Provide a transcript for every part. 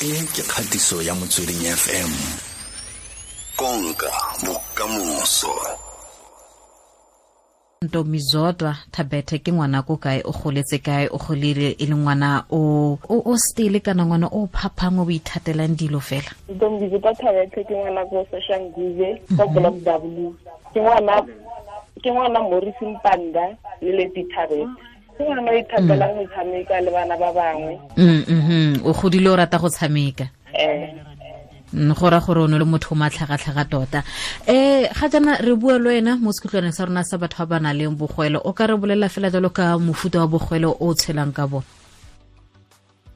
E ke kgatiso ya Motsweding FM. Konka bokamoso. Ntombizodwa Thabethe ke ngwana ko kae, o goletse kae, o golile e le ngwana o stele kana ngwana o phaphang o ithatelang dilo fela? Ntombizodwa Thabethe ke ngwana ko Soshanguve, ko Block W. Ke ngwana Morris Mpanda le Leti Thabethe. Ke ngwana o ithatelang go tshameka le bana ba bangwe. O godile o rata go tshameka? Eh. Go ra gore o ne le motho o matlhagatlhaga tota. Ga jaana re bua le wena mo sekhutlwaneng sa rona sa batho ba ba nang le bogwele. O ka re bolelela fela jalo ka mofuta wa bogwele o tshelang ka bone?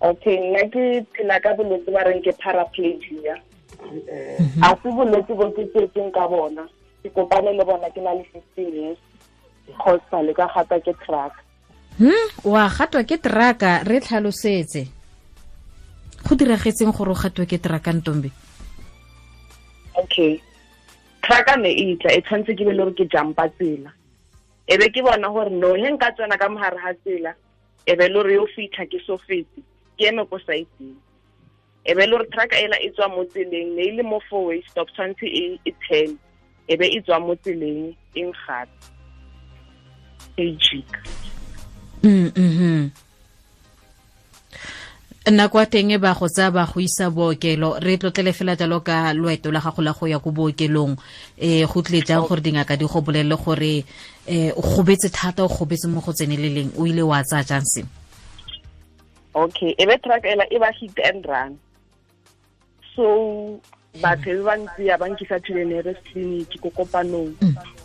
Okay, nna ke phela ka bolwetse ba reng ke paraplegia. A se bolwetse bo ke tsetseng ka bona, ke kopane le bona ke na le 15 years, kgotsa le ka gata ke truck. Wa gatwa ke traka? Re tlhalosetse go diragetseng gore o gatwe ke traka, Ntombi. Okay, trucka ne e tla, e tshwanetse ke be le gore ke jumpa tsela, e be ke bona gore no, he nka tsena ka mogare ga tsela, e be le gore yo fitlha ke so fete, ke eme ko side-eng, e be le gore trucka ela e tswa mo tseleng, ne e le mo four way stop, tshwanetse e turn, e be e tswa mo tseleng, e ngata e jika. Nako ya teng e ba go tsaya ba go isa bookelo. Re tlotlele fela jalo ka loeto la gago la go ya ko bookelong. Go tlile jang gore dingaka di go bolelele gore o gobetse thata, o gobetse mo go tseneleleng? O ile wa tsaya jang seo? Okay, e be truck ela e ba hit and run, so batho e ba ntse ya ba nkisa to the nearest clinic ko Kopanong.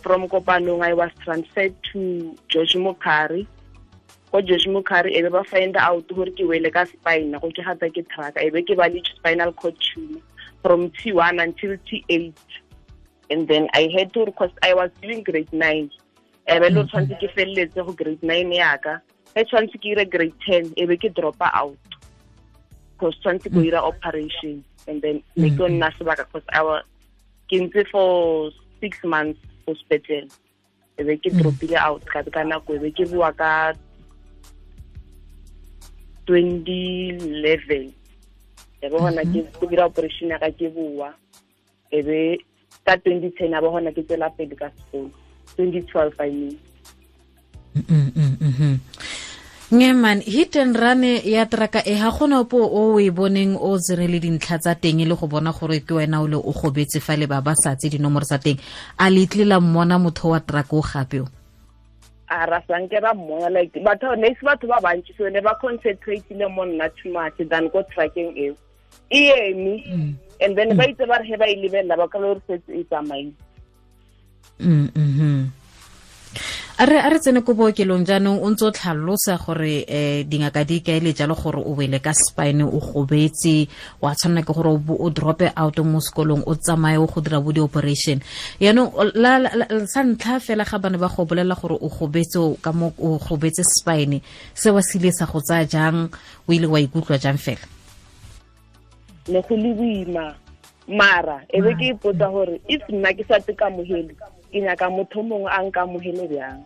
From Kopanong I was transferred to George Mukhari. Ko George Mukhari e be ba find out gore ke wele ka spine, go ke gata ke truck, e be ke ba le spinal cord tumor from T1 until T8, and then I had to request, I was doing grade 9, e be le tshwanetse ke feleletse go grade 9 yaka, e tshwanetse ke ire grade 10, e be ke dropa out because tshwanetse ko ira operation, and then ne ke nna sebaka because I was ke ntse for 6 months ko sepetlele, e be ke dropile out ka nako, e be ke boa ka 2011, e be gona ke go dira operation ya ka, ke boa, e be ka 2010 a ba gona ke tswela pele ka sekolo, 2012 I mean. Nge man, hit and run ya traka e, ga gona opo o e boneng o tsere le dintlha tsa teng e le go bona gore ke wena o le o gobetse fa le ba ba sa tse dinomoro tsa teng? A le tle la mmona motho wa traka o gape o? A ra sanke ra mmona, like batho ne se batho ba bantsi, so ne ba concentrateile mo nna too much than ko truckeng eo e eme, and then ba itse ba re he ba e lebelela ba ka le gore setse e tsamaile. A re tsene ko bookelong jaanong. O ntse o tlhalosa gore dingaka di kaele jalo gore o wele ka spine, o gobetse, wa tshwanela ke gore o drope out mo sekolong, o tsamaye o go dira bo di-operation. Yaanong sa ntlha fela ga bane ba go bolelela gore o gobetse ka mo, o gobetse spine, se wa se ile sa go tsaya jang? O ile wa ikutlwa jang fela? Ne go le boima, mara e be ke ipotsa gore if nna ke sa te kamogele, ke nyaka motho mongwe a nkamogele bjang?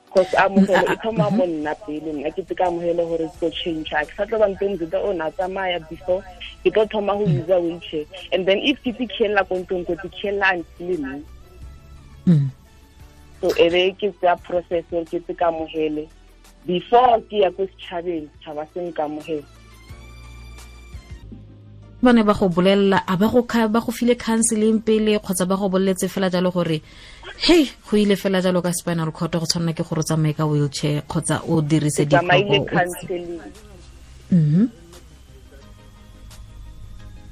Cause amogelo e thoma mo nna pele. Nna ke te kamogele gore ke tlo change, ke sa tlo ba ntse o na tsamaya before, ke tlo thoma go use wheelchair, and then if ke tikhelela ko ntlong, ko tikhelela until neng? So e be ke tsaya process gore ke te kamogele before ke ya ko setšhabeng, setšhaba se nkamogele. Ba ne ba go bolelela, a ba go ba go file counseling pele, kgotsa ba go boleletse fela jalo gore hey, go ile fela jalo ka spinal cord, go tshwanela ke gore o tsamaye ka wheelchair kgotsa o dirise? Tsamaile counseling.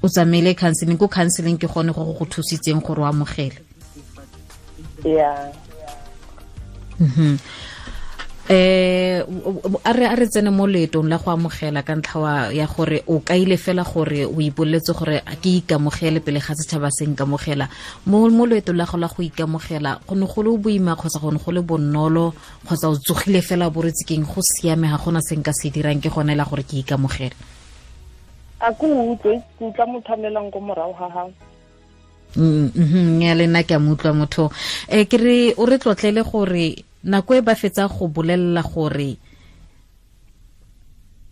O tsamaile counseling. Ko counseling ke gone go thusitseng gore o amogele? Yeah. A re tsene mo leetong la go amogela ka ntlha ya gore o kaile fela gore o ipoletse gore a ke ikamogele pele ga setšhaba se nkamogela. Mo loetong la go la go ikamogela, go ne go le boima kgotsa go ne go le bonolo, kgotsa o tsogile fela bo retse keng, go siame, ga gona se nka se dirang, ke gone la gore ke ikamogele? A ko utlwe, ke utlwa motho a melang ko morago ga gago. Ya le nna ke a mo utlwa motho. Ke re o re tlotlele gore nako e ba fetsa go bolelela gore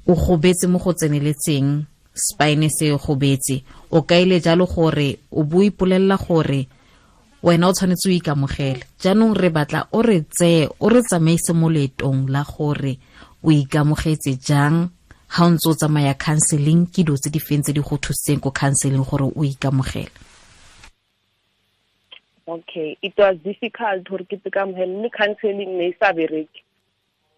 o gobetse mo go tseneletseng. spine se gobetse, o kaile jalo gore o bo ipolelela gore wena o tshwanetse o ikamogele. Jaanong re batla o re tseye, o re tsamaise mo leetong la gore o ikamogetse jang ha o ntse o tsamaya counseling, ke dilo tse di feng tse di go thusitseng ko counseling gore o ikamogele? Okay, it was difficult gore ke ikamogele, mme counseling ne e sa bereke.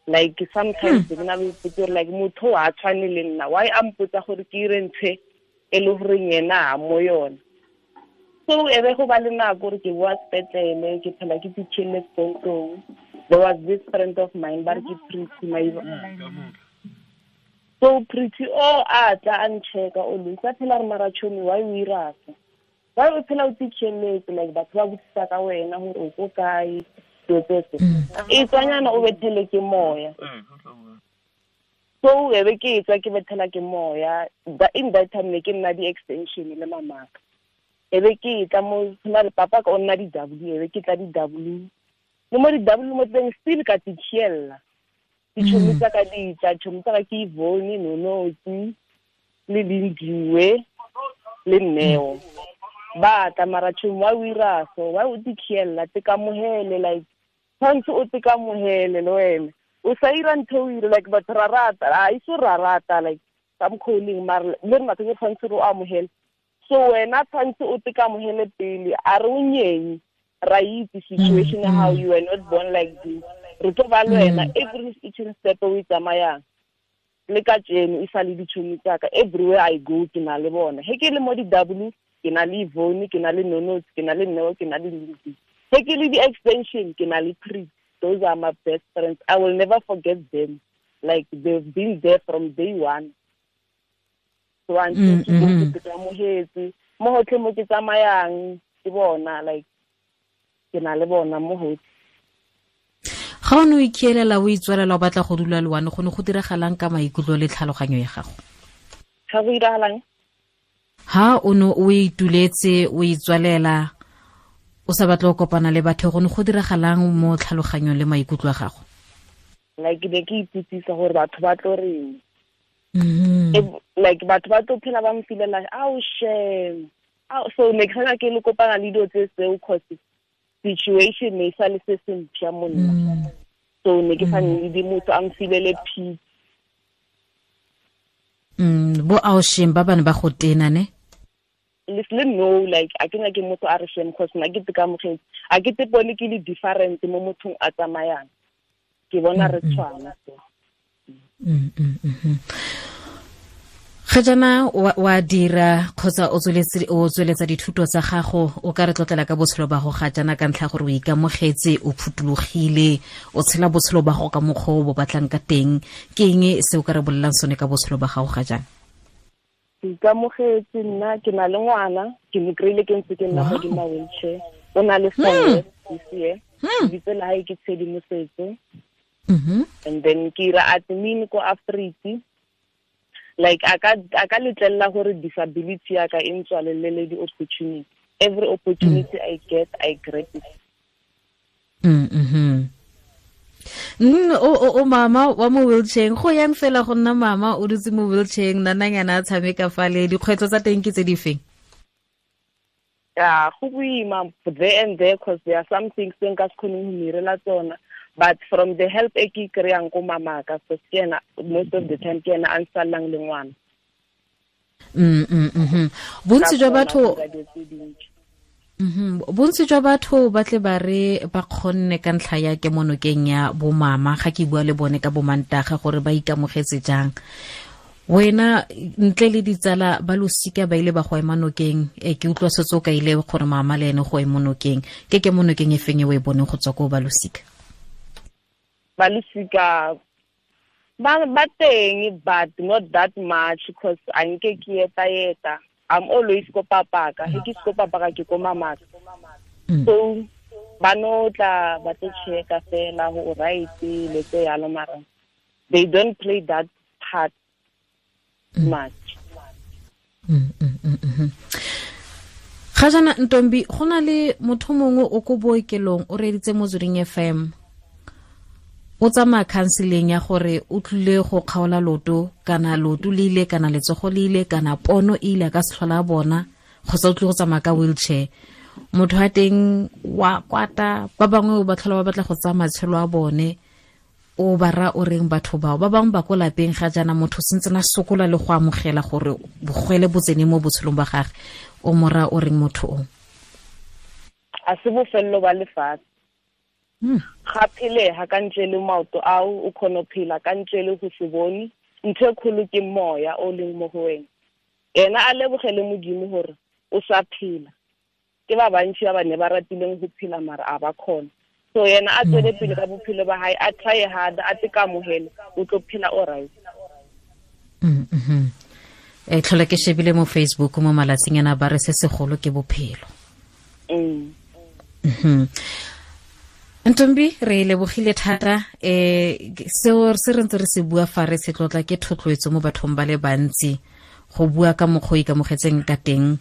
Like sometimes ke na le ipotsa gore like motho wa tshwane le nna, why a mpotsa gore ke ire ntho e le gore yena ha mo yona. So e be go ba le nako gore ke boa sepetlele, ke phela ke pitšhele sekontong. There was this friend of mine ba re ke Pretty Maiba. So Pretty o a tla a ncheka o le sa phela re mara chomi, why o ira so? Why o phela o pitšheletse, like batho ba botsisa ka wena gore o ko kae, dilo tse tse. E tswanyana o bethele ke moya. So e be ke tswa ke bethela ke moya. In that time ne ke nna di-extension le mamaka. E be ke tla mo na le papa ka o nna di-W, e be ke tla di-W. Le mo di-W mo teng still ka titšhiela. Ditšhomi tsa ka di tla, tšhomi tsa ka ke Ivone, Nonotsi, le Lindiwe, le Neo. Ba tla mara tšhomi, why o ira so? Why o titšhiela? Te kamohele, like tshwanetse o te kamohele le wena. O sa ira ntho o ire, like batho ra rata, a iso ra rata, like some calling mara le rena ke tshwanetse re o amohele. So wena tshwanetse o te kamohele pele, a re o nyenye, ra itse situation how you were not born like this. Re tlo ba le wena every each step o e tsamayang. Le ka tjeno e sa le ditšhomi tsa ka, everywhere I go ke na le bona. He ke le mo di-W, ke na le Ivone, ke na le Nonotsi, ke na le Neo, ke na le Lindiwe. He ke le di-extension, ke na le Pretty. Those are my best friends. I will never forget them. Like they've been there from day one. So until ke tsamohetse, mo hotlhe mo ke tsamayang ke bona, like ke na le bona mo hotlhe. Ga o ne o ikielela o itswalela o batla go dula le one, go ne go diragalang ka maikutlo le tlhaloganyo ya gago? Ga go diragalang? Ha o ne o ituletse o itswalela o sa batle go kopana le batho, go ne go diragalang mo tlhaloganyong le maikutlo a gago? Like ne ke ipotsisa gore batho ba tlo reng. Like batho ba tlo phela ba mfilela, ao shame. So ne ke sana ke le kopana le dilo tse tseo, cause situation ne sa le se se mpša mo nna. So ne ke sa need motho a mfilele peace. Bo ao shame ba bane ba go tena ne? Le no, like a ke nyake motho a re shame, cause nna ke teka a ke te bone ke le different mo mothong a tsamayang. Ke bona re tshwana so. Ga jaana wa dira kgotsa o tsweletsa dithuto tsa gago, o ka re tlotlela ka botshelo ba go ga jaana ka ntlha gore o ikamogetse, o phuthologile, o tshela botshelo ba go ka mokgwa o bo batlang ka teng. Ke eng se o ka re bolelang sone ka botshelo ba gago ga jaana? Ke ikamogetse nna, ke na le ngwana, ke mo kry-ile ke ntse ke nna godimo wheelchair. O na le 4 years this year. Lebitso la hae ke Tshedimosetso. And then ke ira admin ko Afriti. Like a ka letlela gore disability ya ka e ntswalelele di-opportunity. Every opportunity I get, I grab it. O mama wa mo wheelchair, go yang fela go nna mama o dutse mo wheelchair, nananyana a tshameka fale, dikgwetlho tsa teng ke tse di feng? Yeah, go boima there and there, cause there are some things tse nka se kgoneng go mirela tsona. But from the help e ke kry-ang ko mamaka, so ke ena most of the time ke ena a nsallang le ngwana. Bontsi jwa batho Bontsi jwa batho ba tle ba re ba kgonne ka ntlha ya kemonokeng ya bo mama, ga ke bua le bone ka bo mantaga gore ba ikamogetse jang. Wena ntle le ditsala ba losika ba ile ba go ema nokeng, ke utlwa setse o ka ile gore mama le ene go ema nokeng. Ke kemonokeng e feng e o e boneng go tswa ko ba losika? Ba losika ba teng, but not that much, because a nke ke eta. I'm always ko papaka. He ke ko papaka ke ko mamaka. So ba no tla ba tlo checka fela go right le tse yalo, mara they don't play that part much. Ga jana Ntombi, go na le motho mongwe o ko bookelong o reeditse Motsweding FM, o O tsamaya counseling ya gore o tlile go kgaola loto kana loto le ile kana letsogo le ile kana pono e ile ka se tlhola bona, kgotsa o tlile go tsamaya ka wheelchair. Motho wa teng wa kwata, ba bangwe ba tlhola ba batla go tsaya matshelo a bone. O ba ra o reng batho bao? Ba bangwe ba ko lapeng ga jaana motho sentse na sokola le go amogela gore bogwele bo tsene mo botshelong ba gagwe. O mo ra o reng motho o? A se bofelelo ba lefatshe. Ga phelega ka ntle le maoto ao, o kgona go phela ka ntle le go se bone. Ntho e kgolo ke moya o leng mo go wena. Ena a lebogele Modimo gore o sa phela. Ke ba bantši ba ba ne ba ratileng go phela mara a ba kgona. So yena a tswele pele ka bophelo ba hae, a try hard, a te kamohele, o tlo phela o right. Tlhola ke shebile mo Facebook mo malatsing ana ba re se segolo ke bophelo. Ntombi, re lebogile thata. Seo se re ntse re se bua fa re se tlotla ke thotloetso mo bathong ba le bantsi go bua ka mokgwa o ikamogetseng ka teng.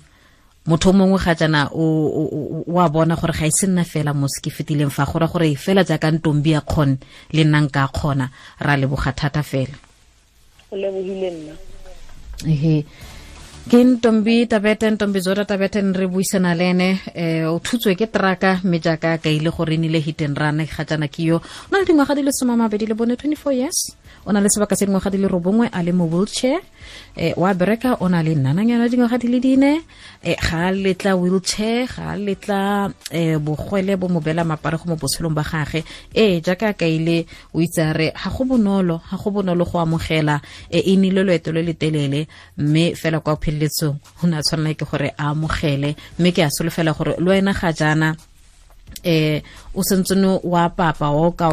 Motho mongwe ga jaana o a bona gore ga e se nna fela mo se ke fetileng fa, go ra gore fela jaaka Ntombi a kgone le nna nka kgona. Ra leboga thata fela. Go lebogile nna. Ehe. Ke Ntombi Tabete, Ntombi Zodwa Tabete, re buisana le ene. O thutswe ke traka mme jaaka ka ile gore e nile hit and run ga jaana ke yo. O na le dingwaga di le 24, 24 years. O na le sebaka se dingwaga di le 9 a le mo wheelchair. Wa bereka, o na le nnananyana dingwaga di le 4. Ga a letla wheelchair, ga a letla bogwele bo mo beela mapare go mo botshelong ba gagwe. Jaaka ka ile o itse a re ga go bonolo, ga go bonolo go amogela. E nnile loeto le le telele mme fela kwa pheleletsong o ne a tshwanela ke gore a amogele. Mme ke a solofela gore le wena ga jaana o sentsene wa papa o ka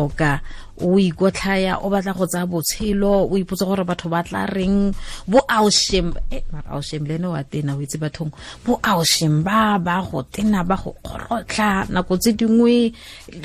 o ikotlhaya, o batla go tsaya botshelo, o ipotsa gore batho ba tla reng, bo aushim, mara aushim le ene wa tena, o itse bathong, bo aushim ba ba go tena, ba go kgorotlha nako tse dingwe,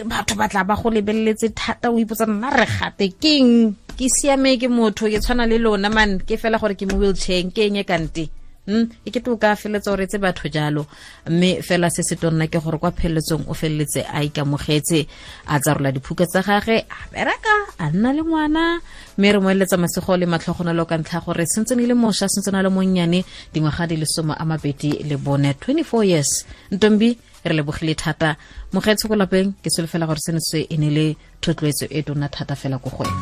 batho ba tla ba go lebeletse thata, o ipotsa nna re gate keng, ke siame ke motho, ke tshwana le lona man, ke fela gore ke mo wheelchair, ke eng e kante. E ke to ka feletsa o retse batho jalo. Mme fela se se tonna ke gore kwa pheleletsong o feleletse a ikamogetse, a tsarola diphuka tsa gagwe, a bereka, a nna le ngwana. Mme re mo eletsa masego le matlhogonolo ka ntlha gore sentse ne le mošwa, sentse na le monnyane, dingwaga di le 24, 24 years. Ntombi, re lebogile thata. Mogaetsho ko lapeng, ke solofela gore seno se e ne le thotloetso e tona thata fela ko go wena.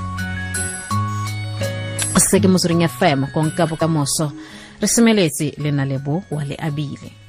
Se ke Motsweding FM, konka bokamoso. Re semeletse le na lebo wa le abile.